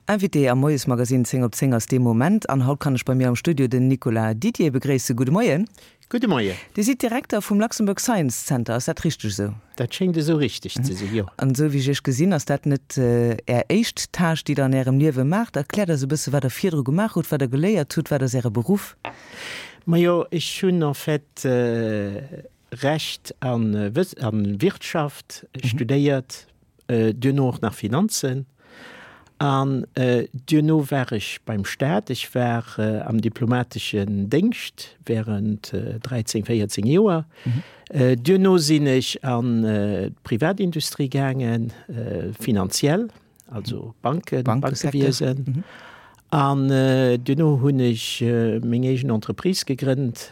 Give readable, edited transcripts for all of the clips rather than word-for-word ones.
Invité am Moiesmagazine 10 op 10 ass dee Moment an haut kann ech bei mir am Studio den Nicolas Didier begréissen. Gudde Moien. Gudde Moien. Dir sidd Direkter vum Luxembourg Science Center, ass dat richteg esou? Dat schéngt esou richteg ze sinn, jo. An esou wéi ech Iech gesinn, ass dat net Är éischt Tâche, déi Der an Ärem Liewe maacht. Erkläert eis e bësse wat Der virdru gemaach hutt, wat Der geléiert hutt, wat ass Äre Beruff? Majo, ech hunn en fait Recht a Wirtschaft studéiert, duerno och nach Finanzen. An duerno war ech beim Staat. Ech war am diplomateschen Déngscht während 13, 14 Joer. Duerno sinn ech an d'Privatindustrie gaangen, finanziell, also Banken, Bankewiesen. An duerno hunn ech meng eegen Entreprise gegrënnt,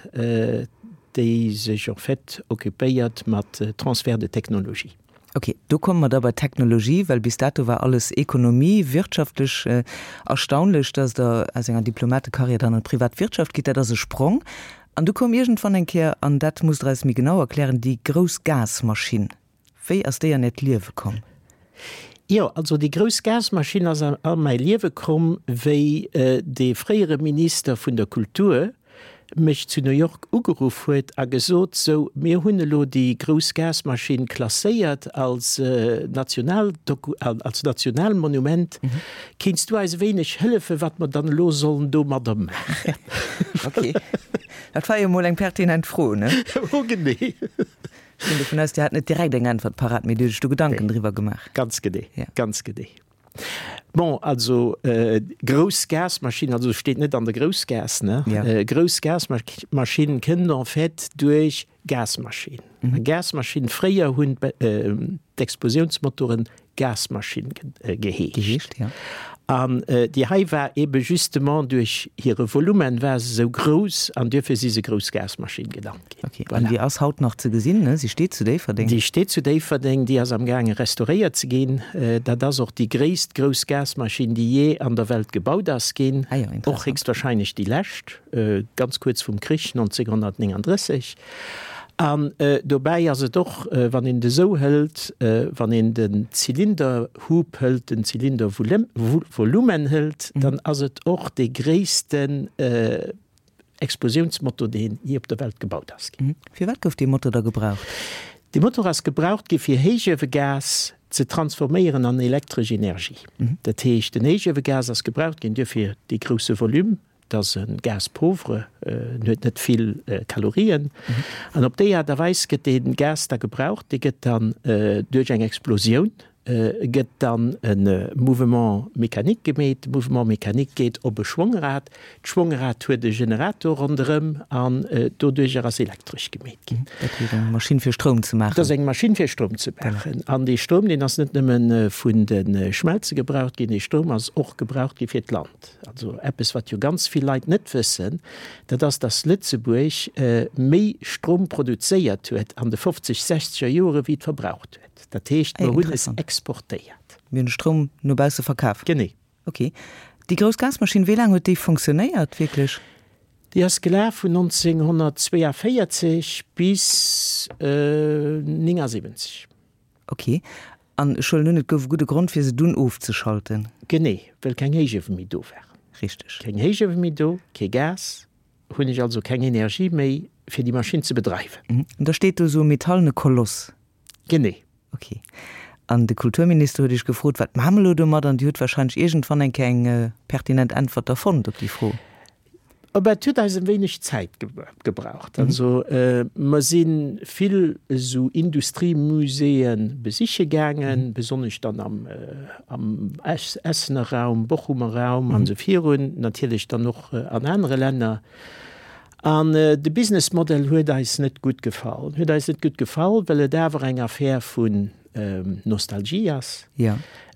déi sech en fait occupéiert mat Transfert de technologie. Ok, do komme mer da bei d'Technologie, well bis dato war alles Ekonomie, wirtschaftlech. Erstaunlech, dass Der aus enger Diplomatekarriär dann an d'Privatwirtschaft gitt, dat ass e Sprong. An du koum iergendwann eng Kéier, an dat musst Der eis méi genau erklären, déi grouss Gasmaschinn. Wéi ass déi an Äert Liewe komm? Jo, also déi grouss Gasmaschinn ass a mäi Liewe komm, wéi dee fréiere Minister vun der Kultur mech zu New York ugeruff huet a gesot, Sou, mir hunn elo déi grouss Gasmaschinn klasséiert als National, als Nationalmonument. Kéints du eis e wéineg hëllefen, wat mer dann elo sollen domadder maachen? Ok, dat war jo emol eng pertinent Fro, ne? Oh, genee. Ech ginn dovun aus, Dir hat net direkt eng Äntwert parat, mee Dir hutt Iech do Gedanken driwwer gemaach. Ganz genee, ganz genee. Bon, also grouss Gasmaschinn, also steet net an der Groussgaass, ne? Ja. Grouss Gasmaschinn kënnt en fait duerch Gasmaschinn. Mhm. Gasmaschinn, fréier hunn d'Explosiounsmotoren Gasmaschinn geheescht. Geheescht, ja. An déi hei war ebe justement duerch hire Volumen war se esou grouss an duerfir si se grouss Gasmaschinn genannt ginn. Ok, an déi ass haut nach ze gesinn, ne? Si steet zu Déifferdeng. Déi steet zu Déifferdeng, déi ass am gaange restauréiert ze ginn. Dat ass och déi gréisst grouss Gasmaschinn, déi jee an der Welt gebaut ass ginn. Ah jo, interessant. Och héchstwahrscheinlech déi lescht, ganz kuerz vum Krich 1939. An dobäi ass et och, wann een et esou hëlt, wann een den Zylinderhub hëlt, den Zylindervolumen hëlt, dann ass et och dee gréissten Explosiounsmotor, deen jee op der Welt gebaut ass ginn. Firwat gouf dee Motor da gebraucht? Dee Motor ass gebraucht gi fir Héichuewegas ze transforméieren an elektresch Energie. Dat heescht, den Héichuewegas ass gebraucht ginn duerfir dee grousse Volume, Et ass e Gaz pauvre, en huet net vill Kalorien. An op déi Aart a Weis gëtt dee Gas da gebraucht. Dee gëtt dann duerch eng Explosioun gëtt dann e Mouvement mécanique gemeet. De Mouvement mécanique geet op e Schwongrad. D'Schwongrad huet e Generator ronderëm an doduercher ass Elektresch gemeet ginn. Dat heescht eng Maschinn fir Stroum ze maachen? Dat ass eng Maschinn fir Stroum ze maachen. An dee Stroum, deen ass net nëmme vun de Schmelze gebraucht ginn, dee Stroum ass och gebraucht gi fir d'Land. Also eppes, wat jo ganz vill Leit net wëssen, dat ass, dass Lëtzebuerg méi Strom produzéiert huet an de fofzeg, sechzeger Joere wéi et verbraucht huet. Dat heescht, mer hunn es exportéiert. Mir hunn de Stroum no bausse verkaf. Genee. Ok. Déi grouss Gasmaschinn, wéi laang huet déi fonctionnéiert wierklech? Déi ass gelaf vun 1942 bis 79. Ok. An ech huelen un, et gouf e gudde Grond, fir se dunn ofzeschalten. Genee, well keng Héichuewe méi do waren. Richteg. Keng Héichuewe méi do, kee Gas, hunn ech also keng Energie méi, fir déi Maschinn ze bedreiwen. An da steet do esou e metallene Koloss. Genee. Ok. An de Kulturminister huet Iech gefrot, wat maache mer elo domat? An Dir hutt wahrscheinlech iergendwann eng Kéier eng pertinent Äntwert da fonnt op déi Fro. Op et huet eis e wéineg Zäit gebraucht. Also mer si vill esou Industriemuséeë besiche gaangen, besonnesch dann am Essener Raum, Bochumer Raum an esou virun, natierlech dann och an anere Länner. An de Businessmodell huet eis net gutt gefall. Huet eis net gutt gefall, well et awer eng Affär vun Nostalgie ass,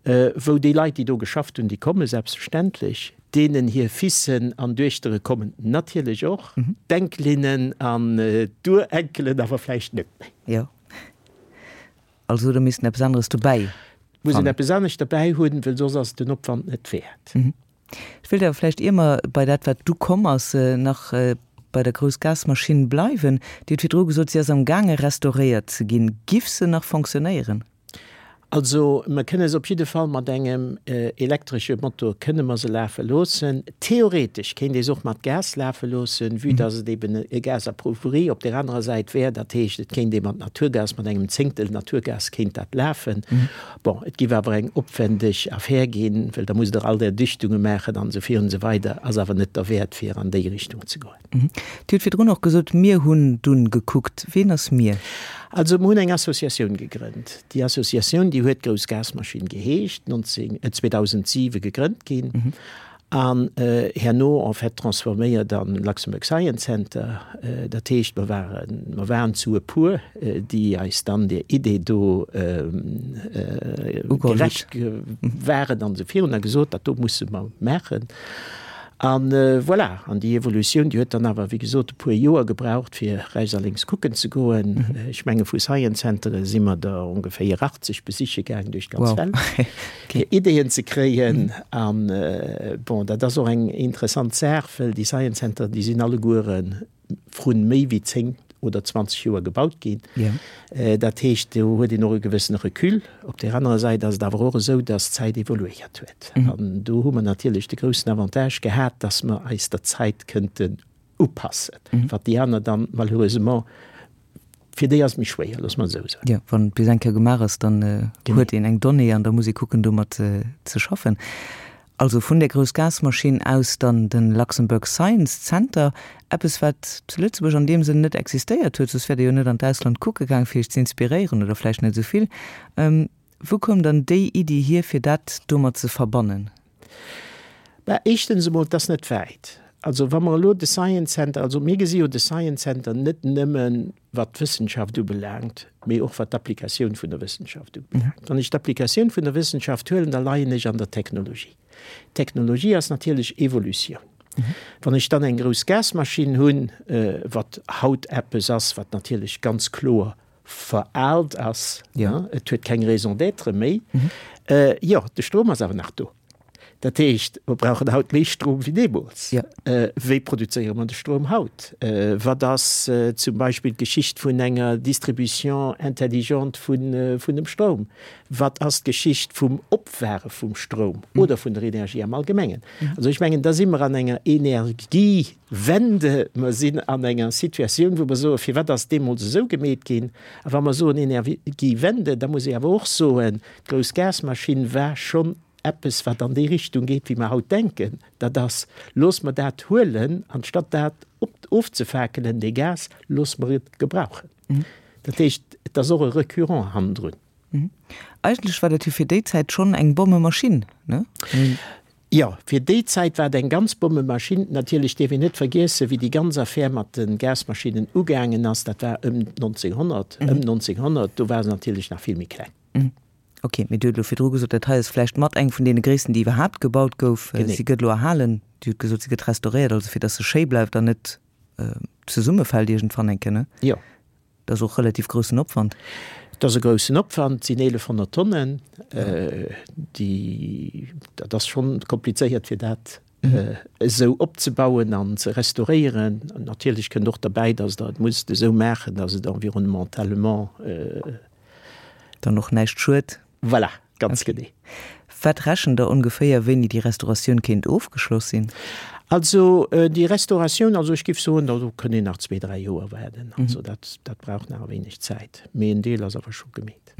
wou déi Leit, déi do geschafft hunn, déi komme selbstverständlech, deenen hir Fissen an Duechtere kommen natierlech och, d'Enkelinnen an d'Urenkelen awer vläicht net méi. Jo. Also da misst een eppes aneres dobäi Muss een eppes anescht derbäi hunn, well soss ass et den Opwand net wäert. Ech wéilt awer vläicht, ier mer bei dat, wat du komm ass, nach bei der grouss Gasmaschinn bleiwen. Dir hutt virdru gesot, si ass am gaange restauréiert ze ginn. Giff se nach fonctionnéieren? Also mer kënne se op jidde Fall mat engem elektresche Motor kënne mer se lafe loossen. Theoretesch kéint ee se och mat Gas lafe loossen, vue dass et eben e Gas appauvri op där anerer Säit wär. Dat heescht, et kéint ee mat Naturgas, mat engem Zéngtel Naturgas kéint dat lafen. Bon, et géif awer eng opwendeg Affär ginn, well da musst Der all där Dichtunge maachen an esou virun esou weider. Ass awer net derwäert, fir an déi Richtung ze goen. Dir hutt virdrun och gesot, mir hunn dunn gekuckt. Ween ass mir? Also mir hunn eng Associatioun gegrënnt. Déi Associatioun, déi huet Grouss Gasmaschinn geheescht, 2007 gegrënnt ginn an herno en fait transforméiert an Luxembourg Science Center. Dat heescht, mer waren, mer waren zu e puer, déi eis dann där Idee do gerecht waren an esou virun a gesot, dat do musse mer maachen. An voilà, an déi Evolutioun, déi huet dann awer, wéi gesot, e puer Joer gebraucht, fir rechts a lénks kucken ze goen. Ech menge vu Science Centere si mer der ongeféier 80 besiche gaang duerch d'ganz Welt, fir Ideeën ze kréien. An bon, dat ass och eng interessant Saach, well déi Science Centere, déi sinn alleguere vrun méi wéi 10 oder 20 Joer gebaut ginn. Dat heescht, do huet een och e gewëssene Recul. Op där anerer Säit ass et awer och esou, dass d'Zäit evoluéiert huet. An do hu mer natierlech de groussen Avantage gehat, dass mer eis der Zäit kënnten upassen, wat déi aner dann malheureusement, fir déi ass et méi schwéier, loosse mer et esou soen. Jo, wann et bis eng Kéier gemaach ass, dann huet een eng Donnée an da muss ee kucken, domat ze schaffen. Also vun där grouss Gasmaschinn aus dann den Luxembourg Science Center, eppes wat zu Lëtzebuerg an deem Sënn net existéiert huet, soss wäert Dir jo net an d'Ausland kucke gaang fir Iech ze inspiréieren oder vläicht net esou vill. Wou koum dann déi Iddi hier fir dat domat ze verbannen? Bah, éischtens emol, et ass net wäit. Also wa mer elo de Science Center, also mir gesi jo de Science Center net nëmmen wat d'Wëssenschaft ubelaangt, mee och wat d'Applikatioun vun der Wëssenschaft ubelaangt. Wann ech d'Applikatioun vun der Wëssenschaft huelen, da leien ech an der Technologie. Technologie ass natierlech Evolutioun. Wann ech dann eng grouss Gasmaschinn hunn, wat haut eppes ass, wat natierlech ganz kloer veraalt ass, et huet keng Raison d'être méi, jo, de Strom ass awer nach do. Dat heescht, mer brauchen haut méi Strom wéi deemools. Wéi produzéiere mer de Strom haut? Wat ass zum Beispill d'Geschicht vun enger Distribution intelligente vun dem Stroum? Wat ass d'Geschicht vum Opware vum Stroum oder vun der Energie am Allgemengen? Also ech mengen, da si mer an enger Energiewende. Mer sinn an enger Situatioun, wou mer soen, firwat ass deemools esou gemeet ginn? A wa mer soen Energiewende, da muss ee awer och soen, d'grouss Gasmaschinn war schonn eppes, wat an déi Richtung geet, wéi mer haut denken, dat ass, Looss mer dat huelen, anstatt dat ofzefakelen, dee Gas, looss mer et gebrauchen. Dat heescht, et ass och e Recurrent hannendrun. Eigentlech war dat jo fir déi Zäit schonn eng Bommemaschinn, ne? Jo, fir déi Zäit war et eng ganz Bommemaschinn. Natierlech dierf een net vergiessen, wéi déi ganz Affär mat de Gasmaschinnen ugaangen ass, dat war ëm 1900, ëm 1900, do war se natierlech nach vill méi kleng. Ok, mee Dir hutt elo virdru gesot, dat hei ass vläicht mat eng vun deene gréissten, déi iwwerhaapt gebaut gouf. Genee. Si gëtt elo erhalen. Dir hutt gesot, si gëtt restauréiert, also fir datt se schéi bleift an net zesummefält iergendwann eng Kéier, ne? Jo. Dat ass och relativ groussen Opwand. Dat ass e groussen Opwand, et sinn 1.100 Tonnen. Déi, dat ass schonn komplizéiert, fir dat esou opzebauen an ze restauréieren. Natierlech kënnt och derbäi, datt Der et musst esou maachen, datt et environnementalement. Dann och näischt schued. Voilà, ganz genee. Wat rechent Der ongeféier, wéini déi Restauratioun kéint ofgeschloss sinn? Also déi Restauratioun, also ech géif soen, do kënnt een nach zwee, dräi Joer waarden. Also dat, dat brauch nach e wéineg Zäit. Mee en Deel ass awer scho gemeet.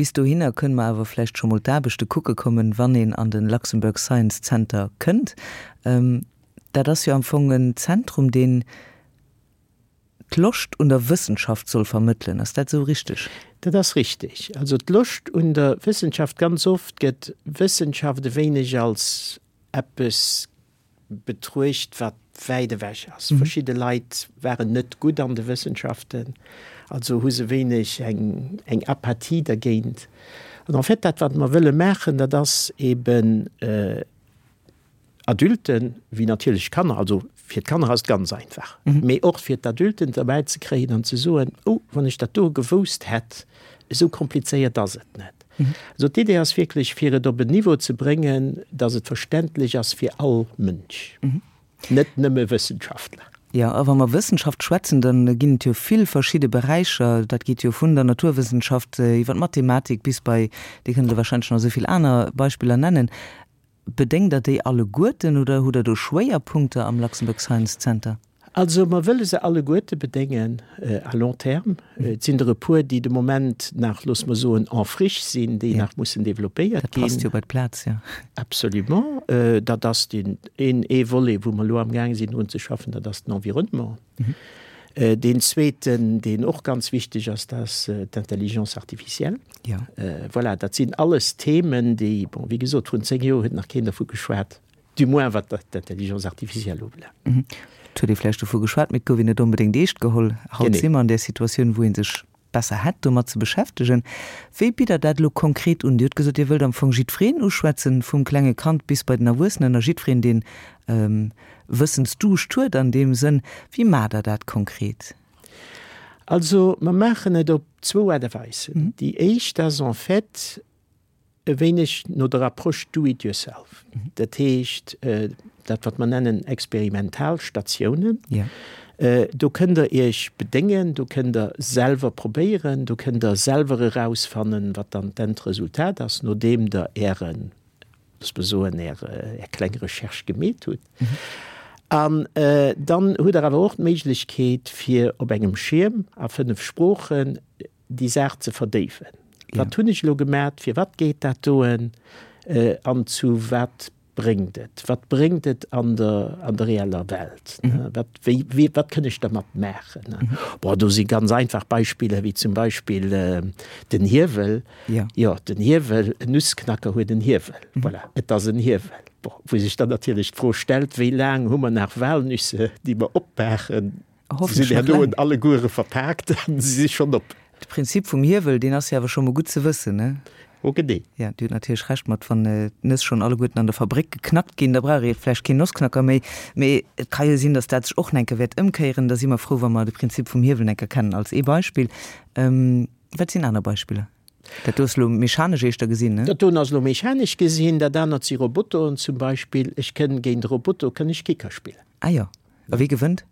Bis dohinner kënne mer awer vläicht scho mol d'Aarbechte kucke kommen, wann een an de Luxembourg Science Center kënnt. Dat ass jo am Fong en Zentrum, deen d'Loscht un der Wëssenschaft soll vermëttelen. Ass dat esou richteg? Dat ass richteg. Also d'Loscht un der Wëssenschaft, ganz oft gëtt Wëssenschaft e wéineg als eppes betruecht, wat wäit ewech ass. Verschidde Leit waren net gutt an de Wëssenschaften, also hu se wéineg eng eng Apathie dergéint. An en fait, dat wat mer wëlle maachen, dat ass eben Adulten, wéi natierlech Kanner, also fir d'Kanner ass et ganz einfach, mee och fir d'Adulten derbäi ze kréien an ze soen, oh, wann ech dat do gewousst hätt, esou komplizéiert ass et net. Also d'Idee ass wierklech, fir et op en Niveau ze bréngen, datt et verständlech ass fir all Mënsch, net nëmme Wëssenschaftler. Jo, a wa mer Wëssenschaft schwätzen, da ginn et jo vill verschidde Beräicher. Dat geet jo vun der Naturwëssenschaft iwwer d'Mathematik bis bei, Dir kënnt elo warscheinlech nach esou vill aner Beispiller nennen. Bedéngt Der déi alleguerten oder hutt Der do Schwéierpunkter am Luxembourg Science Center? Also mer wëlle se alleguerte bedéngen à long terme. Et sinn der e puer, déi de Moment nach, loosse mer soen, en friche sinn, déi nach mussen développéiert ginn. Dat passt jo bei d'Plaz, jo. Absolument. Dat ass deen een, ee Volet, wou mer elo amgaang sinn drun ze schaffen, dat ass den Environnement. Deen zweeten, deen och ganz wichteg ass, dat ass d'Intelligence artificielle. Voilà, dat sinn alles Themen, déi, bon, wéi gesot, vrun 10 Joer huet nach keen dervu geschwat. Du moins wat d'Intelligence artificielle ubelaangt. Et huet ee vläicht dovu geschwat, mee et gouf een net onbedéngt eescht geholl. Haut si mer an där Situatioun, wou ee sech besser hätt domat ze beschäftegen. Wéi bitt Der dat elo konkret un? Dir hutt gesot, Dir wëllt am Fong jiddwereen uschwätzen, vum klenge Kand bis bei den Erwuessenen a jiddwereen, deen Wëssensduuscht huet an deem Sënn. Wéi maacht Der dat konkret? Also mer maachen et op zwou Aart a Weisen. Déi éischt ass en fait, e wéineg no der Approche do it yourself, dat heescht dat wat mer nennen Experimentalstatiounen. Do kënnt Der Iech bedéngen, do kënnt Der selwer probéieren, do kënnt Der selwer erausfannen, wat dann d'Endresultat ass, nodeem Der Ären, looss mer soen, Är kleng Recherche gemeet hutt. An dann hutt Der awer och d'Méiglechkeet, fir op engem Schierm a 5 Sproochen déi Saach ze verdéiwen. Wat hunn ech elo gemat, firwat geet dat doen an zu wat bréngt et? Wat bréngt et an der, an der reeller Welt? Wat, wéi, wéi, wat kënn ech dermat maachen? Bon, do si ganz einfach Beispiller, wéi zum Beispill den Hiewel. Jo, den Hiewel, en Nussknacker huet en Hiewel. Voilà, et ass en Hiewel. Bon, wou sech dann natierlech d'Fro stellt, wéi laang hu mer nach Walnüsse, déi mer opmaachen? Se sinn herno en alleguere verpaakt an se si schonn op. De Prinzip vum Hiewel, deen ass jo awer scho mol gutt ze wëssen, ne? Oh genee. Jo, Dir hutt natierlech Recht mat, wann d'Nëss schonn alleguerten an der Fabréck geknackt ginn, da brauch ee vläicht keen Nossknacker méi. Mee et ka jo sinn, datt dat sech och nach eng Kéier wäert ëmkéieren. Da si mer frou, wa mer de Prinzip vum Hiewel eng Kéier kennen als ee Beispill. Wat sinn aner Beispiller? Dat do ass elo mechanesch éischter gesinn, ne? Dat doen ass elo mechanesch gesinn. Dat anert si Robotoren zum Beispill. Ech kënn géint e Roboto kënn ech Kicker spillen. Ah jo. A wie gewënnt?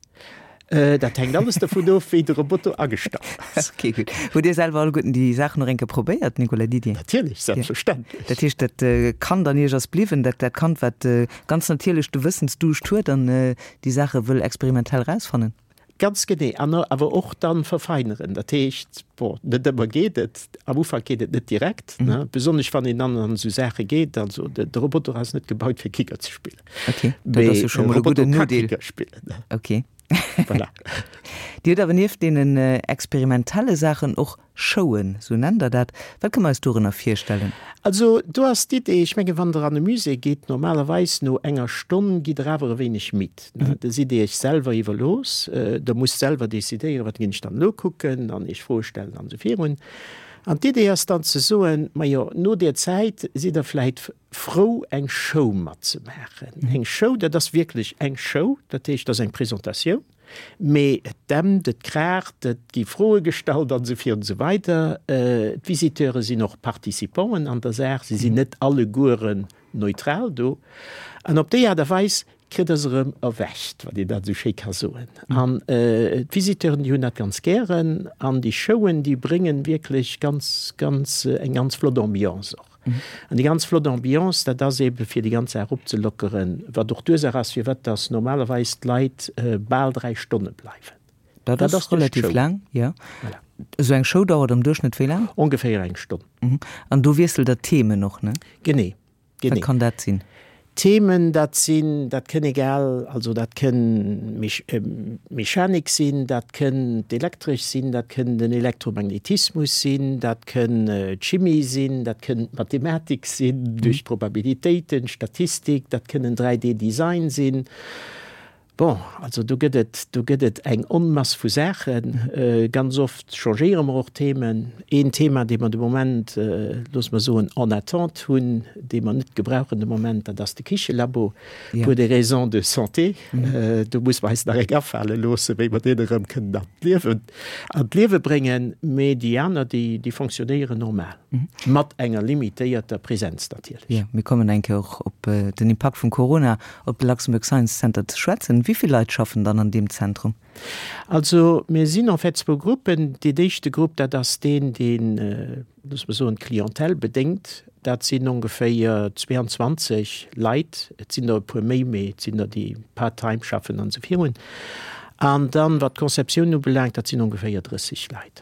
Dat hänkt alles dovun of, wéi de Roboter agestallt ass. Ok, gutt. Hutt Dir selwer alleguerten déi Saachen och eng Kéier probéiert, Nicolas Didier? Natierlech, selbstverständlech. Dat heescht, dat Kand an Iech ass bliwwen, dat dat Kand, wat ganz natierlech de Wëssensduuscht huet an déi Saache wëll experimentell erausfannen? Ganz genee. An awer och dann verfeineren. Dat heescht, bon, net ëmmer geet et, am Ufank geet et net direkt, ne, besonnesch wann een dann an esou Saache geet. Also de Roboter ass net gebaut fir Kicker ze spillen. Ok, dat ass jo scho mol e gudden Nodeel. Kicker spillen. Ok. Voilà. Dir hutt awer nieft deenen experimentelle Saachen och Showen, sou nennt Der dat. Wat kënne mer eis dorënner virstellen? Also do ass d'Idee, ech menge wann Der an e Musée gitt, normalerweis no enger Stonn gitt Der awer e wéineg midd. Da sidd Dir Iech selwer iwwerlooss. Der musst selwer decidéieren, wat ginn ech dann elo kucken an Iech Froe stellen an esou virun. An d'Idee ass dann ze soen, majo no där Zäit sidd Der vläit frou eng Show matzemaachen. Eng Show, dat ass wierklech eng Show, dat heescht, dat ass eng Presentatioun. Mee et dämpt, et kraacht, et gi Froe gestallt an esou virun esou weider. D'Visiteure sinn och Participanten an der Saach, si sinn net allegueren neutral do. An op déi Aart a Weis kritt Der se erëm erwächt, wann een dat esou schéi ka soen. An d'Visiteuren, déi hunn dat ganz gären. An déi Showen, déi bréngen wierklech ganz, ganz, eng ganz flott Ambiance och. An déi ganz flott Ambiance, dat ass eebe fir déi ganz Saach opzelockeren, wat och d'Ursaach ass, firwat dass normalerweis d'Leit bal 3 Stonne bleiwen. Dat ass relativ laang, jo. Voilà. Esou eng Show dauert am Duerchschnëtt wéi laang? Ongeféier eng Stonn. An do wiesselt Der d'Themen och, ne? Genee. Wat kann dat sinn? Themen, dat sinn, dat kënn egal, also dat kënn Mechanik sinn, dat kënn d'Elektresch sinn, dat kënn den Elektromagnetismus sinn, dat kënn d'Chimie sinn, dat kënn d'Mathematik sinn duerch Probabilitéiten, Statistik, dat kënn en 3D-Design sinn. Bon, also do gëtt et, do gëtt et eng Onmass vu Saachen. Ganz oft changéiere mer och Themen. Een Thema, dee mer de Moment, loosse mer soen, en attente hunn, dee mer net gebrauchen de Moment, dat ass de Kichelabo, pour des raisons de santé. Do musse mer eis nach eng afale loossen, wéi mer deen erëm kënnen an d'Liewen, an d'Liewe bréngen. Mee déi aner, déi, déi fonctionnéieren normal, mat enger limitéierter Präsenz natierlech. Jo, mir kommen eng Kéier och op den Impakt vum Corona op de Luxembourg Science Center ze schwätzen. Wéi vill Leit schaffen dann an deem Zentrum? Also mir sinn en fait zwou Gruppen. Deen éischte Grupp, dat ass deen, deen, loosse mer soen, d'Clientèle bedéngt. Dat sinn ongeféier 22 Leit. Et sinn der e puer méi, mee et sinn der, déi part-time schaffen an esou virun. An dann, wat d'Conceptioun ubelaangt, dat sinn ongeféier 30 Leit.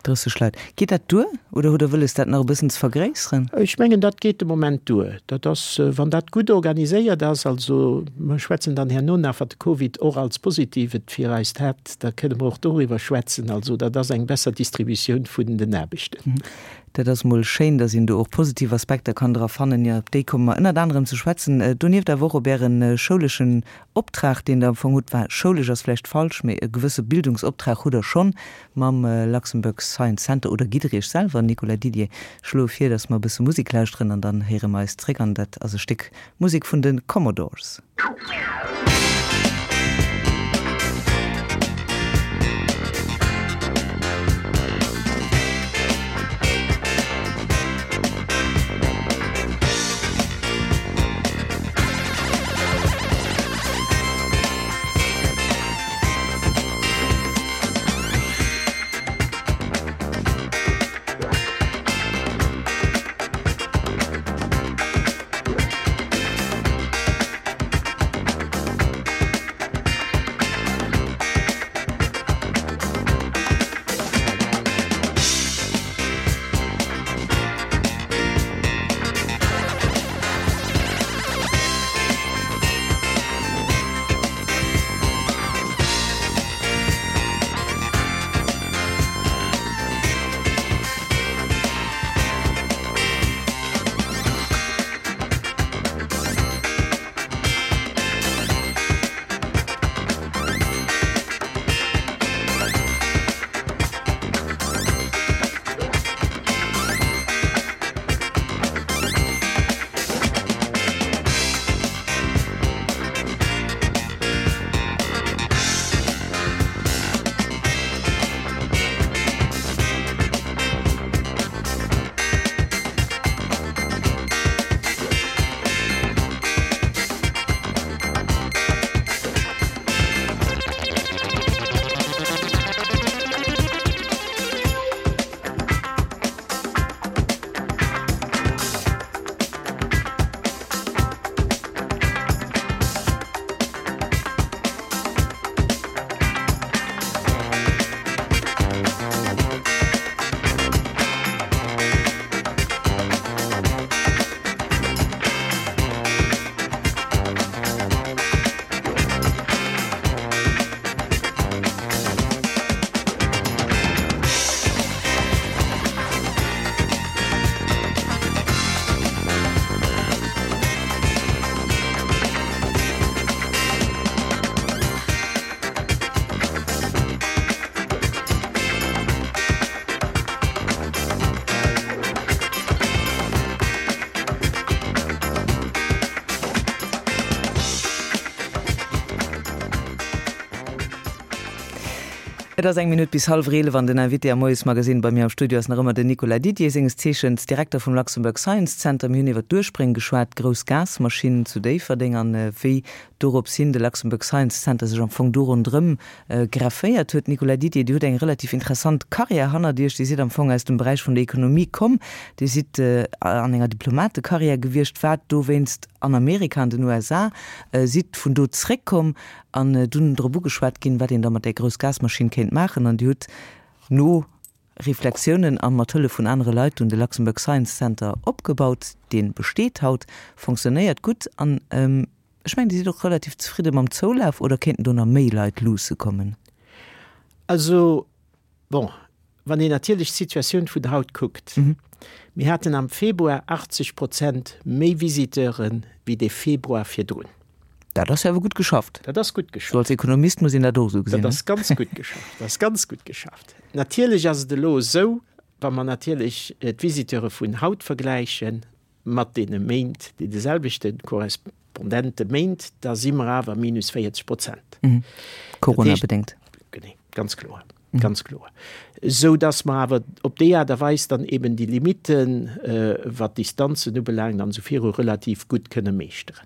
30 Leit. Geet dat duer oder hutt Der wëlles, dat nach e bëssen ze vergréisseren? Ech mengen, dat geet de Moment duer. Dat ass, wann dat gutt organiséiert ass, also mer schwätzen dann herno nach, wat de Covid och als Positivet fir eist hat, da kënne mer och doriwwer schwätzen. Also dat ass eng besser Distributioun vun den Aarbechten. Dat ass emol schéin, datt een do och positiv Aspekter kann dra fannen. Jo, op déi komme mer ënnert anerem ze schwätzen. Donieft awer och op Äre schouleschen Optrag, deen Der am Fong hutt. Enfin, schoulesch ass vläicht falsch, mee e gewësse Bildungsoptrag hutt Der schonn mam Luxembourg Science Center. Oder gitt Der Iech selwer, Nicolas Didier? Ech schloe vir, datt mer e bësse Musek lauschteren an dann héiere mer eis zréck. An dat ass e Stéck Musek vun de Commodores. Et ass eng Minutt bis hallwer 11 an den Invité am Moiesmagazine bei mir am Studio ass nach ëmmer den Nicolas Didier, senges Zeechens Direkter vum Luxembourg Science Center. Mir hunn iwwer d'Urspréng geschwat, d'grouss Gasmaschinn zu Déifferdeng an wéi dorops hin de Luxembourg Science Center sech am Fong do ronderëm grefféiert huet. Nicolas Didier, Dir hutt eng relativ interessant Karriär hannert Iech. Dir sidd am Fong aus dem Beräich vun der Ekonomie komm. Dir sidd an enger Diplomatekarriär gewiescht, waart dowéinst an Amerika, an den USA, sidd vun do zréckkomm An dunn drop ugeschwat ginn, wat een da mat där grouss Gasmaschinn kéint maachen. An Dir hutt no Reflexiounen a mat Hëllef vun anere Leit dunn de Luxembourg Science Center opgebaut. Dee besteet haut, fonctionnéiert gutt an ech mengen, Dir sidd och relativ zefridde mam Zoulaf, oder kéinten do nach méi Leit luusse kommen? Also, Bon, wann een natierlech d'Situatioun vun haut kuckt, mir haten am Februar 80 Prozent méi Visiteure wéi de Februar virdrun. Dat ass jo awer gutt geschafft. Dat ass gutt geschafft. Sou als Ekonomist muss een dat och esou gesinn. Dat ass ganz gutt geschafft. Dat ass ganz gutt geschafft. Natierlech ass et elo esou, wa mer natierlech d'Visiteure vun haut vergläiche mat deene Méint, deene selwechte korrespondente Méint, da si mer awer minus 40 Prozent. Corona-bedéngt. Genee, ganz kloer. Ganz kloer. Esou dass mer awer op déi Aart a Weis dann eben déi Limiten, wat d'Distanzen ubelaangt an esou viru, relativ gutt kënne meeschteren.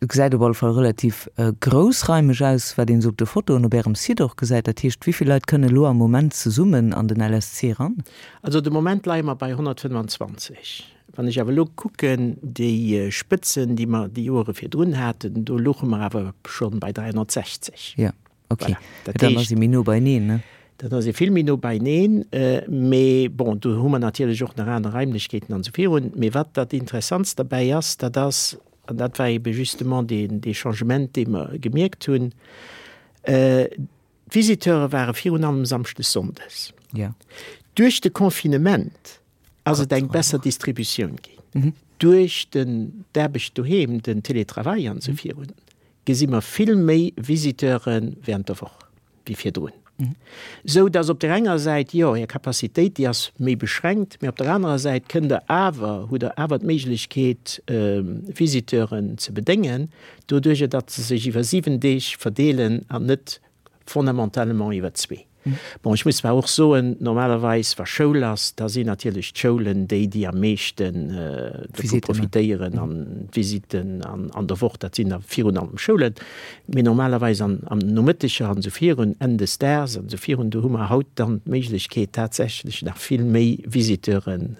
Et gesäit op alle Fall relativ groussraimeg aus, wat een esou op de Fotoen op Ärem Site och gesäit. Dat heescht, wéi vill Leit kënne elo am Moment zesummen an den LSC eran? Also de Moment leie mer bei 125. Wann ech awer elo kucken, déi Spëtzen, déi mer déi Joere virdrun haten, do louche mer awer scho bei 360. Jo. Ok, voilà. Dat dann ass ee méi no beieneen, ne? Dat ass ee vill méi no beieneen, mee bon, do hu mer natierlech och nach aner Raimlechkeeten an esou virun. Mee wat dat Interessantst derbäi ass, dat ass, an dat war ebe justement deen, dee Changement, dee mer gemierkt hunn, d'Visiteure ware virun allem samschdes, sonndes. Ja. Duerch de Confinement ass et eng besser Distributioun ginn. Duerch den, d'Aarbecht doheem, den Télétravail an esou virun, gesi mer vill méi Visiteure während der Woch wéi virdrun. Esou dass op där enger Säit, jo, Är Capacitéit, déi ass méi beschränkt, mä op der anerer Säit kënnt Der awer, hutt Der awer d'Méiglechkeet, Visiteuren ze bedéngen, doduerjer datt se sech iwwer 7 Deeg verdeelen an net fondamentalement iwwer zwee. Bon, ech muss zwar och soen, normalerweis wa Schoul ass, da sinn natierlech d'Schoulen déi, déi am meeschten dovu profitéieren an d'Visitten an der Woch, dat sinn da virun allem Schoulen. Mee normalerweis an Nomëtteger an esou virun, Enn des Daags an esou virun, do hu mer haut dann d'Méiglechkeet tatsächlech nach vill méi Visiteuren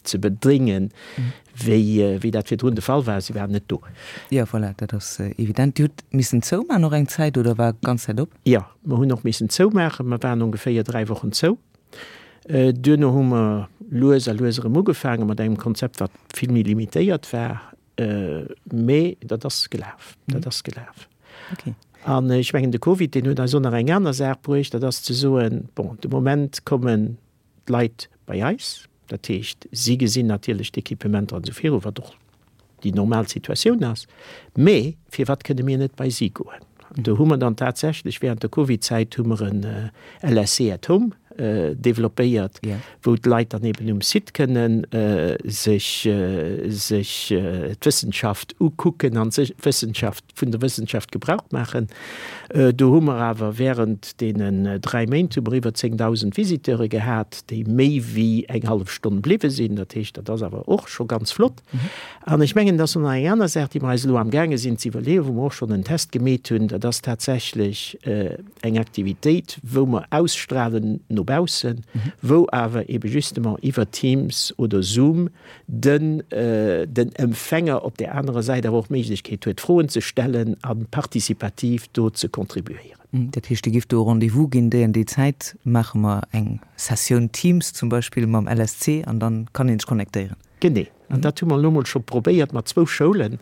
ze bedéngen, wéi, wéi dat virdrun de Fall war, si waren net do. Jo, voilà, dat ass evident. Dir hutt missen zoumaachen och eng Zäit oder war ganz Zäit op? Jo, mer hunn och missen zoumaachen. Mer waren ongeféier 3 Wochen zou. Duerno hu mer lues a lues erëm ugefaange mat engem Konzept, wat vill méi limitéiert war. Mee dat ass gelaf, dat ass gelaf. Okay. An ech mengen, de Covid, deen huet eis och nach eng aner Saach bruecht, dat ass ze soen, bon, de Moment kommen d'Leit bei eis, dat heescht, si gesinn natierlech d'Equipementer an esou viru, wat och déi normal Situatioun ass, mee firwat kënne mir net bei si goen? An do hu mer dann tatsächlech während der Covidzäit hu mer en LSC at home developpéiert, wou d'Leit dann eben um Site kënnen sech sech d'Wëssenschaft ukucken an sech d'Wëssenschaft vun der Wëssenschaft Gebrauch maachen. Do hu mer awer während deenen 3 Méint hu mer iwwer 10.000 Visiteure gehat, déi méi wéi eng hallef Stonn bliwwe sinn. Dat heescht, dat ass awer och scho ganz flott. An ech mengen, dat ass nach eng aner Saach, déi mer eis elo amgaange sinn ze iwwerleeën, wou mer och schonn en Test gemeet hunn, dat ass tatsächlech eng Aktivitéit, wou mer ausstrahlen no baussen, wou awer ebe justement iwwer Teams oder Zoom den den Empfänger op där anerer Säit awer och d'Méiglechkeet huet, Froen ze stellen a participativ do ze contribuéieren. Dat heescht, Dir giff do e Rendez-vous ginn, déi an déi Zäit maache mer eng Sessioun Teams zum Beispill mam LSC an dann kann ee sech connectéieren. Genee. An dat hu mer elo mol scho probéiert mat zwou Schoulen.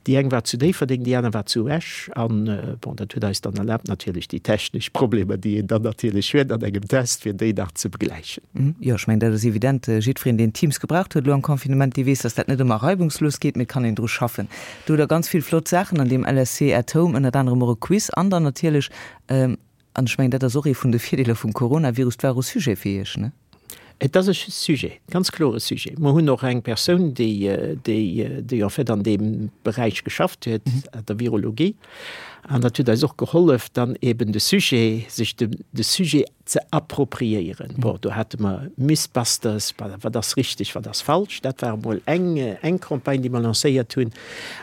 Déi eng war zu Déifferdeng, déi aner war zu Esch. An, bon, dat huet eis dann erlaabt, natierlech déi technesch Problemer, déi een dann natierlech huet an engem Test, fir déi nach ze begläichen. Jo, ech mengen, dat ass evident. Jiddwereen, deen Teams gebraucht huet elo am Confinement, dee weess, dass dat net ëmmer reibungslos geet, mee et kann een dru schaffen. Do hutt Der ganz vill flott Saachen an deem LSC at Home, ënnert anerem och e Quiz an dann natierlech, An ech mengen, dat ass och ee vun de Virdeeler vum Coronavirus, 't war och e Sujet fir Iech, ne? Et ass e Sujet, ganz kloer e Sujet. Mer hunn och eng Persoun, déi, déi, déi en fait an deem Beräich geschafft huet, an der Virologie. An dat huet eis och gehollef, dann eben de Sujet, sech de, de Sujet ze appropriéieren. Bon, do hate mer Mythbusters, wat ass richteg, wat ass falsch. Dat war emol eng, eng Campagne, déi mer lancéiert hunn.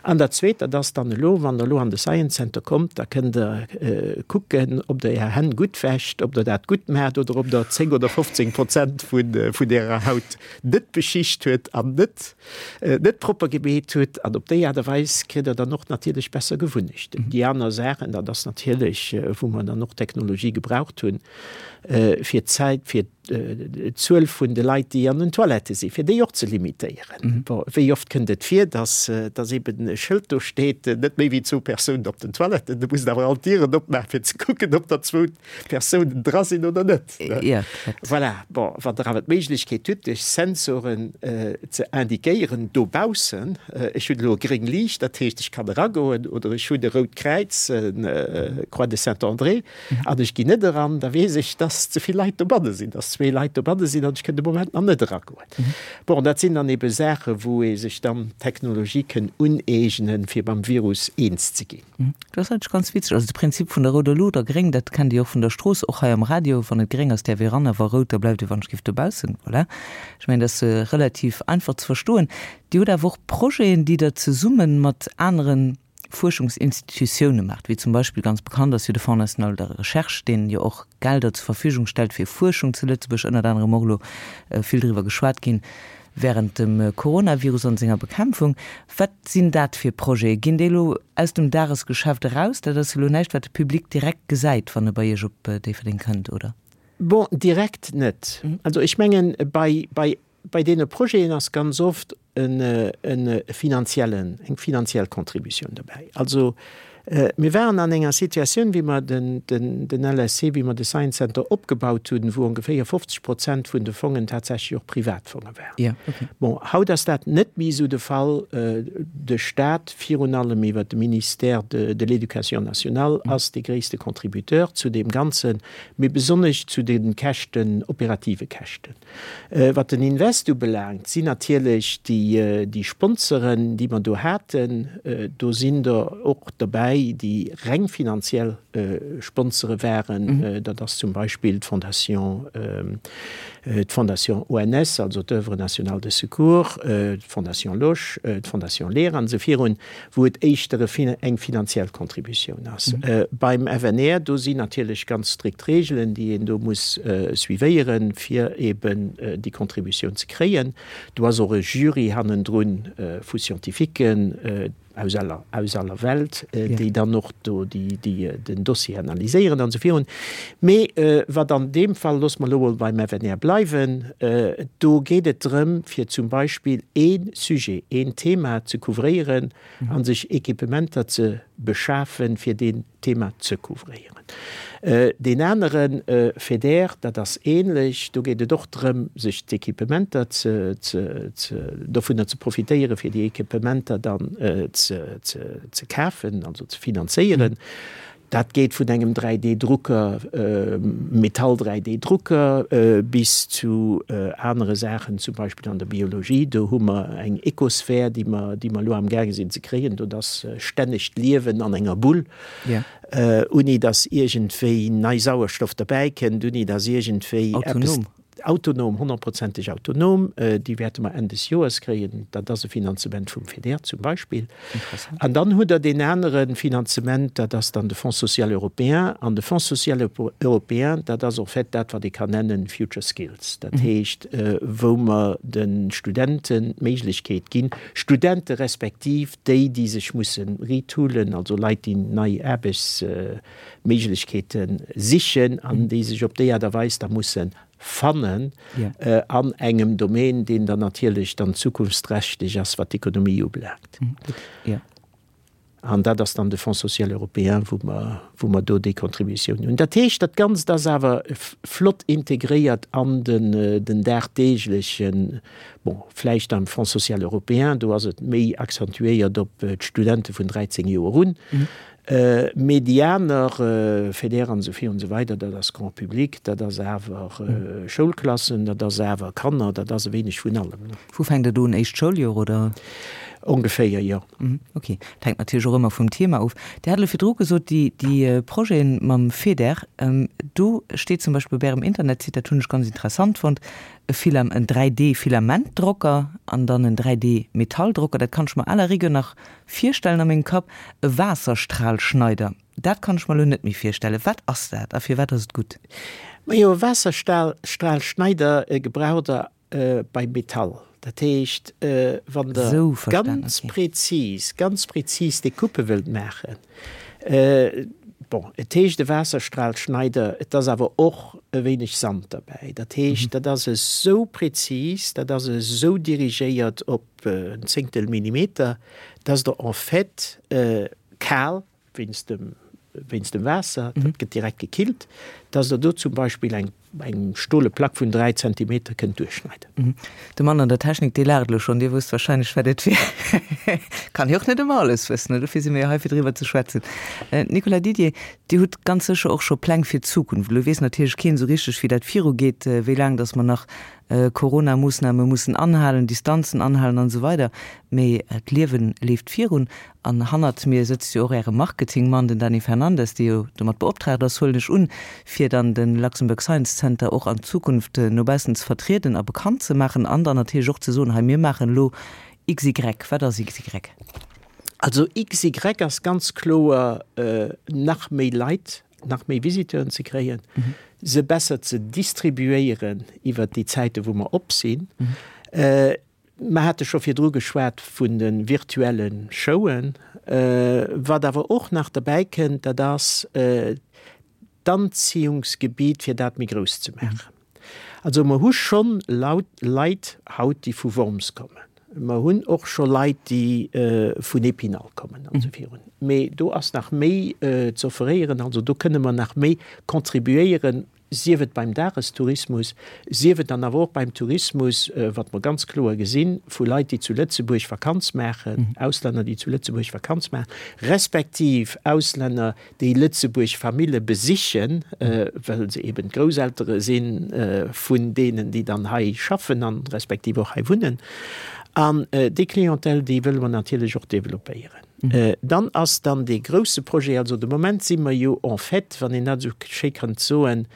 An dat Zweet, dat ass dann elo, wann Der elo an de Science Center kommt, da kënnt Der kucken, ob Der Är Hänn gutt wäscht, ob Der dat gutt maacht oder ob Der 10 oder 15 Prozent vun Ärer Haut net beschicht huet an net net propper gemeet hutt. An op déi Aart a Weis kritt Der dann och natierlech besser Gewunnechten. Déi aner Saachen, dat ass natierlech, wou mer dann och Technologie gebraucht hunn, fir d'Zäit, fir d'Zuel vun de Leit, déi an den Toilettë sinn, fir déi och ze limitéieren. Bon, wéi oft kënnt et vir, dass, dass eben e Schëld do steet, net méi wéi zwou Persounen op den Toiletten, du muss awer all d'Dieren opmaachen, fir ze kucken, ob der zwou Persounen dra sinn oder net. Ja, voilà. Bon, wann Der awer d'Méiglechkeet hutt, duerch Sensoren ze indiquéieren dobaussen, ech hunn elo e gréng Liicht, dat heescht, ech kann eragoen, oder ech hunn e rout Kräiz, Croix de Saint-André, an ech ginn net eran, da weess ech, dass. dass ze vill Leit dobanne sinn, dass zwee Leit dobanne sinn an ech kënn de Moment nach net eragoen. Bon, dat sinn dann ebe Saachen, wou ee sech dann d'Technologie kënn uneegnen, fir mam Virus eens ze ginn. Dat ass eigentlech ganz witzeg. Also de Prinzip vun der rouder Luucht a gréng, dat kennt Dir och vun der Strooss, och hei am Radio, wann et gréng ass, däerf ee ran, a wa rout, da bleift ee wann ech giff dobaussen. Voilà. Ech mengen, dat ass relativ einfach ze verstoen. Dir hutt awer och Projeten, déi Der zesumme mat aneren Fuerschungsinstitutioune maacht, wéi zum Beispill, ganz bekannt ass jo de Fonds national de recherche, deen jo och Gelder zur Verfügung stellt fir Fuerschung zu Lëtzebuerg, ënnert anerem och elo vill driwwer geschwat ginn während dem Coronavirus an senger Bekämpfung. Wat sinn dat fir Projete? Ginn déi elo aus dem Dagesgeschäft eraus? Dat ass jo elo näischt, wat de Public direkt gesäit, wann e bei Iech op Déifferdeng kënnt, oder? Bon, direkt net. Also ech mengen, bei, bei Bei deene Projeten ass ganz oft e finanziellen, eng finanziell Contributioun dobäi. Also mir waren an enger Situatioun, wéi mer den LSC, wéi mer de Science Center opgebaut hunn, wou ongeféier 50 Prozent vun de Fongen tatsächlech och Privatfonge waren. Bon, haut ass dat net méi esou de Fall. De Stat, virun allem iwwert de Ministère de l'Éducation nationale, ass dee gréisste Contributeur zu deem Ganzen, mee besonnesch zu de Käschten, operative Käschten. Wat den Invest ubelaangt, sinn natierlech déi Sponsoren, déi mer do haten, do sinn der och derbäi, déi reng finanziell Sponsore waren. Dat ass zum Beispill d'Fondation, d'Fondation ONS, also d'Oeuvre nationale de secours, d'Fondation Losch, d'Fondation Leer an esou virun. wou et éischter eng finanziell Contributioun ass. Beim FNR, do sinn natierlech ganz strikt Regeln, déi een do muss suivéieren, fir eben déi Contributioun ze kréien. Do ass och e Jury hannendrun vu Scientifiquen aus aller, aus aller Welt, déi dann och do déi, déi den Dossier analyséieren an esou virun. Mee wat an deem Fall, loosse mer elo mol beim FNR bleiwen, do geet et drëm, fir zum Beispill ee Sujet, een Thema ze couvréieren a sech Equipementer ze beschafen, fir deen Thema ze couvréieren. Deen anere FEDER, dat ass ähnlech, do geet et och drëm, sech d'Equipementer ze, ze, ze, dovunner ze profitéieren, fir déi Equipementer dann ze, ze, ze kafen, also ze finanzéieren. Dat geet vun engem 3D-Drucker, Metall-3D-Drucker, bis zu anere Saachen, zum Beispill an der Biologie. Do hu mer eng Ecosphär, déi mer, déi mer elo amgaange sinn ze kréien. Do ass stänneg d'Liewen an enger Bull, ouni datt iergendwéi nei Sauerstoff derbäikënnt, ouni datt iergendwéi eppes. Autonom, honnertprozenteg autonom, déi wäerte mer Enn des Joers kréien. Dat ass e Finanzement vum FEDER zum Beispill. An dann hutt Der deen anere Finanzement, dat ass dann de Fonds social européen. An de Fonds social européen, dat ass en fait dat, wat ee kann nennen Future Skills. Dat heescht, wou mer de Studenten d'Méiglechkeet ginn, Studente respektiv déi, déi sech musse retoolen, also Leit, déi nei Aarbechtsméiglechkeeten, Méiglechkeete sichen an déi sech op déi Aart a Weis da musse fannen an engem Domaine, deen dann natierlech dann zukunftsträchteg ass, wat d'Ekonomie ubelaangt. An dat ass dann de Fonds social européen, wou mer, wou mer do déi Contributioun hunn. Dat heescht, dat Ganzt ass awer flott integréiert an den, den dagdeeglechen, bon, vläicht am Fonds social européen, do ass et méi accentuéiert op d'Studente vun 13 Joer un, Mee déi aner, FEDER an esou virun esou weider, dat ass Grand public, dat ass awer Schoulklassen, dat ass awer Kanner, dat ass e wéineg vun allem. Wou fänkt et un? Éischt Schouljoer, oder? Ongeféier, jo. Ok. Dat hänkt natierlech och ëmmer vum Thema of. Dir hat elo virdru gesot, déi, déi Projeten mam FEDER, do steet zum Beispill op Ärem Internetsite, dat hunn ech ganz interessant fonnt, e Filam-, en 3D-Filamentdrocker an dann en 3D-Metalldrocker. Dat kann ech mer à la rigueur nach Virstellen a mengem Kapp, e Waasserstralschneider, dat kann ech mer elo net méi virstellen. Wat ass dat a firwat ass et gutt? Majo, e Waasserstralschneider gebraucht der beim Metall. Dat heescht, wann der ganz präzis, ganz präzis Decoupe wëllt maachen, bon, et heescht e Waasserstralschneider, et ass awer och e wéineg Sand derbäi. Dat heescht, dat ass esou präzis, dat ass esou dirigéiert op en Zéngtel Millimeter, dass der en fait kal, wéinst dem, wéinst dem Waasser, dat gëtt direkt gekillt, dass Der do zum Beispill eng eng stole Plack vun 3 Zentimeter kënnt duerchschneiden. De Mann an der Technik, dee laacht elo schonn. Dir wësst wahrscheinlech, wat et wier. Kann jo och net ëmmer alles wëssen, dofir si mir jo hei, fir driwwer ze schwätzen. Nicolas Didier, Dir hutt ganz sécher och scho Pläng fir d'Zukunft. Elo weess natierlech keen esou richteg, wéi dat virugeet, wéi laang datt mer nach Corona-Moossname mussen anhalen, Distanzen anhalen an esou weider. Mee d'Liewe leeft virun. An hannert mir sëtzt jo och Äre Marketingmann, den Dany Fernandes, dee jo domat beoptraagt ass, huelen ech un, fir dann de Luxembourg Science Center och an Zukunft no baussen ze vertrieden a bekannt ze maachen an dann natierlech och ze soen, hei mir maachen elo XY. Wat ass XY? Also XY ass ganz kloer nach méi Leit, nach méi Visiteuren ze kréien, se besser ze distribuéieren iwwert déi Zäite wou mer op sinn. Mer hate scho virdru geschwat vun de virtuelle Showen. Wat awer och nach derbäi kënnt, dat ass d'Anziehungsgebiet, fir dat méi grouss ze maachen. Also mer hu schonn Leit haut, déi vu Worms kommen. Mer hunn och scho Leit, déi vun Épinal kommen an esou virun. Mee do ass nach méi z'offeréieren. Also do kënne mer nach méi contribuéieren, sief et beim Dagestourismus, sief et dann awer och beim Tourismus, wat mer ganz kloer gesinn, vu Leit, déi zu Lëtzebuerg Vakanz maachen, Auslänner, déi zu Lëtzebuerg Vakanz maachen, respektiv Auslänner, déi Lëtzebuerg Famille besichen, well se eben d'Grousseltere si vun deenen, déi dann hei schaffen an respektiv och hei wunnen. An déi Clientèle, déi wëlle mer natierlech och developpéieren. Dann ass dann dee grouse Projet, also de Moment si mer jo en fait, wann een dat esou schéi kann soen,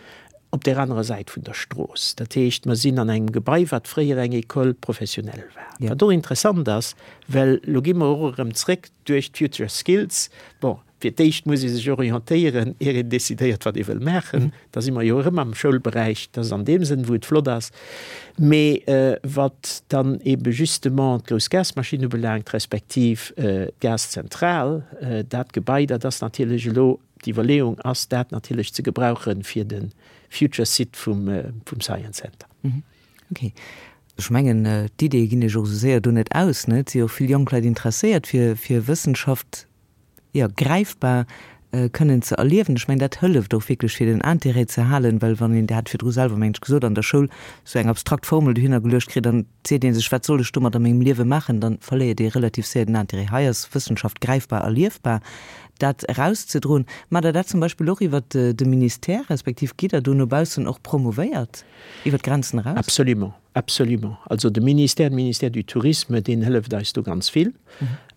op där anerer Säit vun der Strooss. Dat heescht, mer sinn an engem Gebai, wat fréier eng École professionnelle war. Wat och interessant ass, well elo gi mer och erëm zréck duerch d'Future Skills. Bon, fir d'éischt muss ee sech orientéieren, ier een decidéiert, wat ee wëll maachen. Da si mer jo erëm am Schoulberäich, dat ass an deem Sënn, wou et flott ass. Mee wat dann ebe justement d'grouss Gasmaschinn ubelaangt, respektiv d'Gaszentral, dat Gebai, dat ass natierlech elo, d'Iwwerleeung ass, dat natierlech ze gebrauche fir de future Site vum Science Center. Okay. Ech mengen, d'Ideeë ginn Iech och esou séier do net aus, ne? Et si jo och vill jonk Leit interesséiert fir Wëssenschaft. jo, gräifbar kënnen ze erliewen. Ech mengen, dat hëlleft och wierklech, fir den Intérêt ze halen, well wann een, Dir hat virdru selwer, mengen ech, gesot, an der Schoul esou eng abstrakt Formel dohinner geluecht kritt, dann seet ee sech, wat soll ech domat a mengem Liewe maachen, dann verléiert ee relativ séier den Intérêt. Hei ass Wëssenschaft gräifbar erliefbar. Dat erauszedroen, maacht Der dat zum Beispill och iwwert de Ministère, respektiv gitt Der do no baussen och promouvéiert iwwert d'Grenzen eraus? Absolument. Absolument. Also de Ministère, de Ministère du Tourisme, deen hëlleft eis do ganz vill.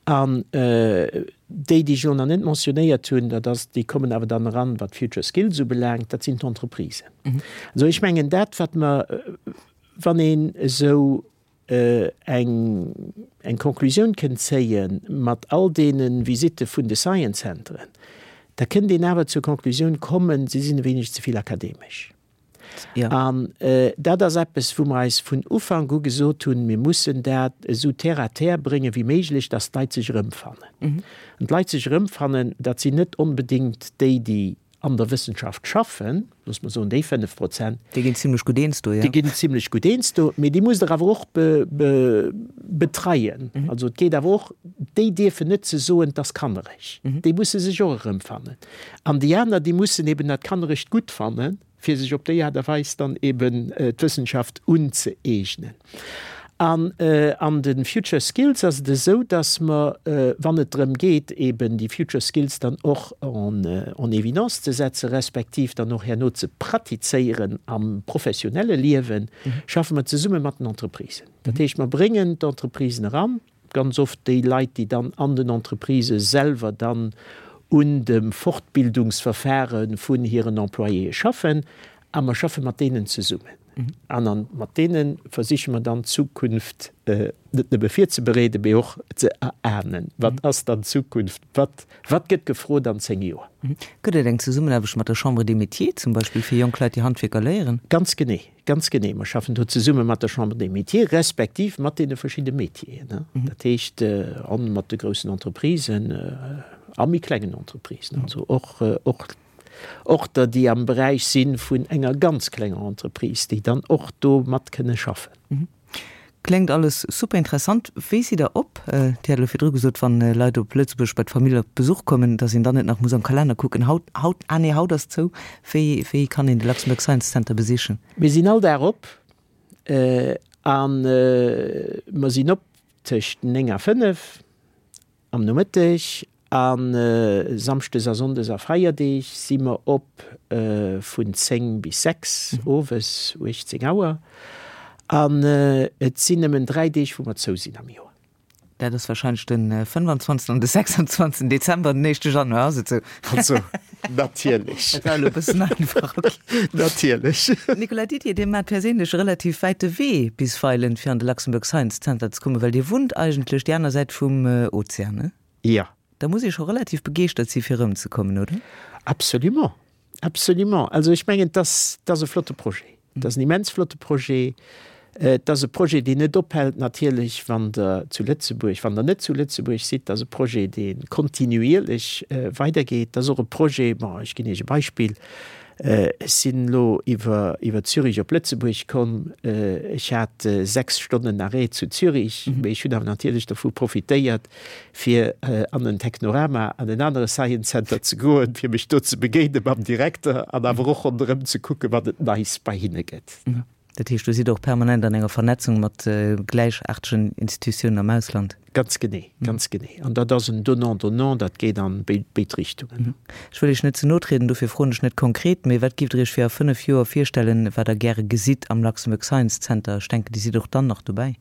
An déi, déi ech elo nach net mentionnéiert hunn, dat ass, déi kommen awer dann eran, wat Future Skills ubelaangt, dat sinn d'Entreprisen. Also ech mengen dat, wat mer, wann een esou eng, eng Konklusioun kënnt zéie mat all deene Visitte vun de Science Centeren, da kënnt een awer zur Konklusioun kommen, se sinn e wéineg ze vill akademesch. Ja. An dat ass eppes, wou mer eis vun Ufank u gesot hunn, mir mussen dat esou terre à terre bréngen wéi méiglech, dass d'Leit sech erëmfannen. An d'Leit sech erëmfannen, dat sinn net onbedéngt déi, déi an der Wëssenschaft schaffen, loosse mer soen déi 5 Prozent. Déi ginn zimlech gutt eens do, jo. Déi ginn zimlech gutt eens do, mee déi musst Der awer och betreien. Also et geet awer och, déi dierfen net ze soen, 't ass kannereg. Déi musse sech och erëmfannen. An déi aner, déi mussen eben dat Kannerecht gutt fannen, fir sech op déi Aart a Weis dann eben d'Wëssenschaft unzëeegnen. An an de Future Skills ass et esou, dass mer, wann et drëm geet, eben déi Future Skills dann och en en évidence ze setzen, respektiv dann och herno ze pratizéieren am professionelle Liewen, schaffe mer zesumme mat den Entreprisen. Dat heescht, mer bréngen d'Entreprisen eran, Ganz oft déi Leit, déi dann an den Entreprisë selwer dann un dem Fortbildungsverfahre vun hiren Employéë schaffen. A mer schaffe mat deenen zesummen. An a mat deene versiche mer dann d'Zukunft net nëmme virzebereeden, mee och ze erahnen, Wat ass dann d'Zukunft? Wat, wat gëtt gefrot an 10 Joer? Gëtt et eng Zesummenaarbecht mat der Chambre des Métiers zum Beispill, fir jonk Leit, déi Handwierker léieren? Ganz genee. Ganz genee. Mer schaffen do zesumme mat der Chambre des Métiers, respektiv mat deene verschidde Métieren, dat heescht a mat de groussen Entreprisen a méi klengen Entreprisen, also och, och, och der, déi am Beräich si vun enger ganz klenger Entreprise, déi dann och do mat kënne schaffen. Kléngt alles super interessant. Wéi sidd der op? Dir hat elo virdru gesot, wann Leit op Lëtzebuerg bei d'Famill op Besuch kommen, datt een dann net nach muss am Kalenner kucken. Haut, haut, ah nee, haut ass zou. Wéi, wéi kann een de Luxembourg Science Center besichen? Mir sinn all Dag op a mer sinn op tëscht 9 a 5. Am Nomëtteg a Samschdes a Sonndes a Feierdeeg si mer op vun 10 bis 6 owes, 18 Auer. An et sinn nëmmen 3 Deeg wou mer zou sinn am Joer. Dat ass wahrscheinlech de 25 an de 26 Dezember an den éischte Januar, ass et sou? Also, natierlech. Dat war elo e bëssen einfach, ok. Natierlech. Nicolas Didier, Dir maacht perséinlech e relativ wäite Wee bisweilen, fir an de Luxembourg Science Center ze kommen, well Dir wunnt eigentlech déi aner Säit vum Ozean, ne? Jo. Da muss ee scho relativ begeeschtert si fir erëmzekommen, oder? Absolument, absolument. Also ech mengen, et ass, et ass e flotte Projet. Et ass en immens flotte Projet. Et ass e Projet, deen net ophält natierlech, wann Der zu Lëtzebuerg, wann Der net zu Lëtzebuerg sidd. Et ass e Projet, dee kontinuierlech weidergeet. Et ass och e Projet, bon, ech ginn Iech e Beispill, Ech sinn elo iwwer, iwwer Zürich op Lëtzebuerg komm. Ech hat 6 Stonnen Arrêt zu Zürich, mee ech hunn awer natierlech dovu profitéiert, fir an en Technorama, an en anere Science Center ze goen, fir mech do ze begéine mam Direkter an awer och ronderëm ze kucken, wat et Neis bei hinne gëtt. Dat heescht, do sidd Der och permanent an enger Vernetzung mat gläichaartegen Institutiounen am Ausland? Ganz genee, ganz genee. An dat ass en Donnant-donnant, dat geet an béid Richtungen. Ech wëll Iech net ze no trieden, dofir froen ech net konkret, mee wat giff Der Iech fir a 5 Joer virstellen, wat Der gäre gesitt am Luxembourg Science Center? Ech denken, Dir sidd och dann nach dobäi.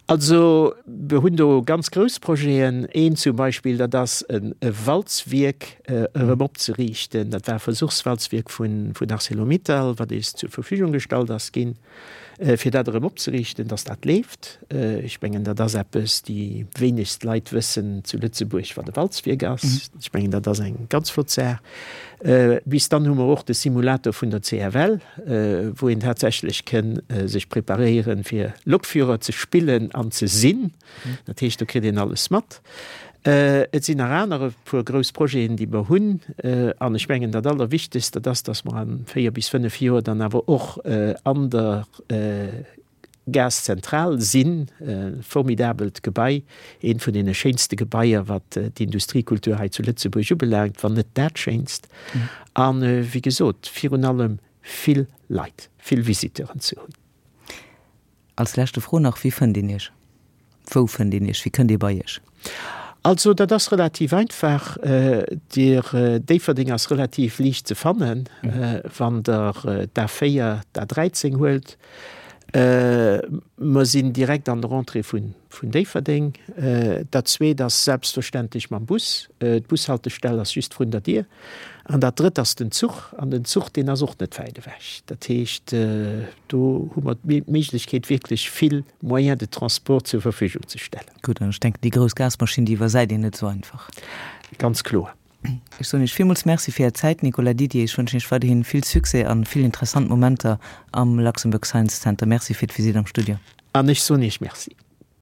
Also, mir hunn do ganz grouss Projeten. Een zum Beispill, dat ass e Walzwierk erëm opzeriichten. Dat war e Versuchswalzwierk vun Arcelor-Mittal, wat eis zur Verfügung gestallt ass ginn, fir dat erëm opzeriichten, dass dat leeft. Ech mengen, dat ass eppes, déi wéinegst Leit wëssen zu Lëtzebuerg, wat e Walzwierk ass. Ech mengen, dat ass eng ganz flott Saach. Bis dann hu mer och de Simulator vun der CFL, wou een tatsächlech kënn sech preparéieren, fir Lokführer ze spillen an ze sinn. Dat heescht, do kritt een alles mat. Et sinn nach aner e puer grouss Projeten, déi mer hunn. An ech mengen, dat Allerwichtegst, dat ass, dass mer a véier bis fënnef Joer dann awer och an der Gaszentral sinn. E formidabelt Gebai, eent vun deene schéinste Gebaier, wat d'Industriekultur hei zu Lëtzebuerg ubelaangt, wann net dat schéinst. A wéi gesot, virun allem vill Leit, vill Visiteuren ze hunn. Als leschte Fro nach, Wéi fënnt een Iech? Wou fënnt een Iech? Wéi kënnt ee bei Iech? Also dat ass relativ einfach. Dir, Déifferdeng ass relativ liicht ze fannen, wann Der d'A4, d'A13 huelt. Mer sinn direkt an der Entrée vun Déifferdeng. Dat Zweet ass selbstverständlech mam Bus. D'Bushaltestell ass just vrun der Dier. An dat Drëtt ass den Zuch. An den Zuch, deen ass och net wäit ewech. Dat heescht, do hu mer d'Méiglechkeet, wierklech vill Moyens de transport zur Verfügung ze stellen. Gutt, an ech denken, déi grouss Gasmaschinn, déi iwwersäit een net esou einfach. Ganz kloer. Ech soen Iech villmools Merci fir Är Zäit, Nicolas Didier. Ech wënschen Iech weiderhin vill Succès an vill interessant Momenter am Luxembourg Science Center. Merci fir d'Visitt am Studio. An ech soen Iech Merci.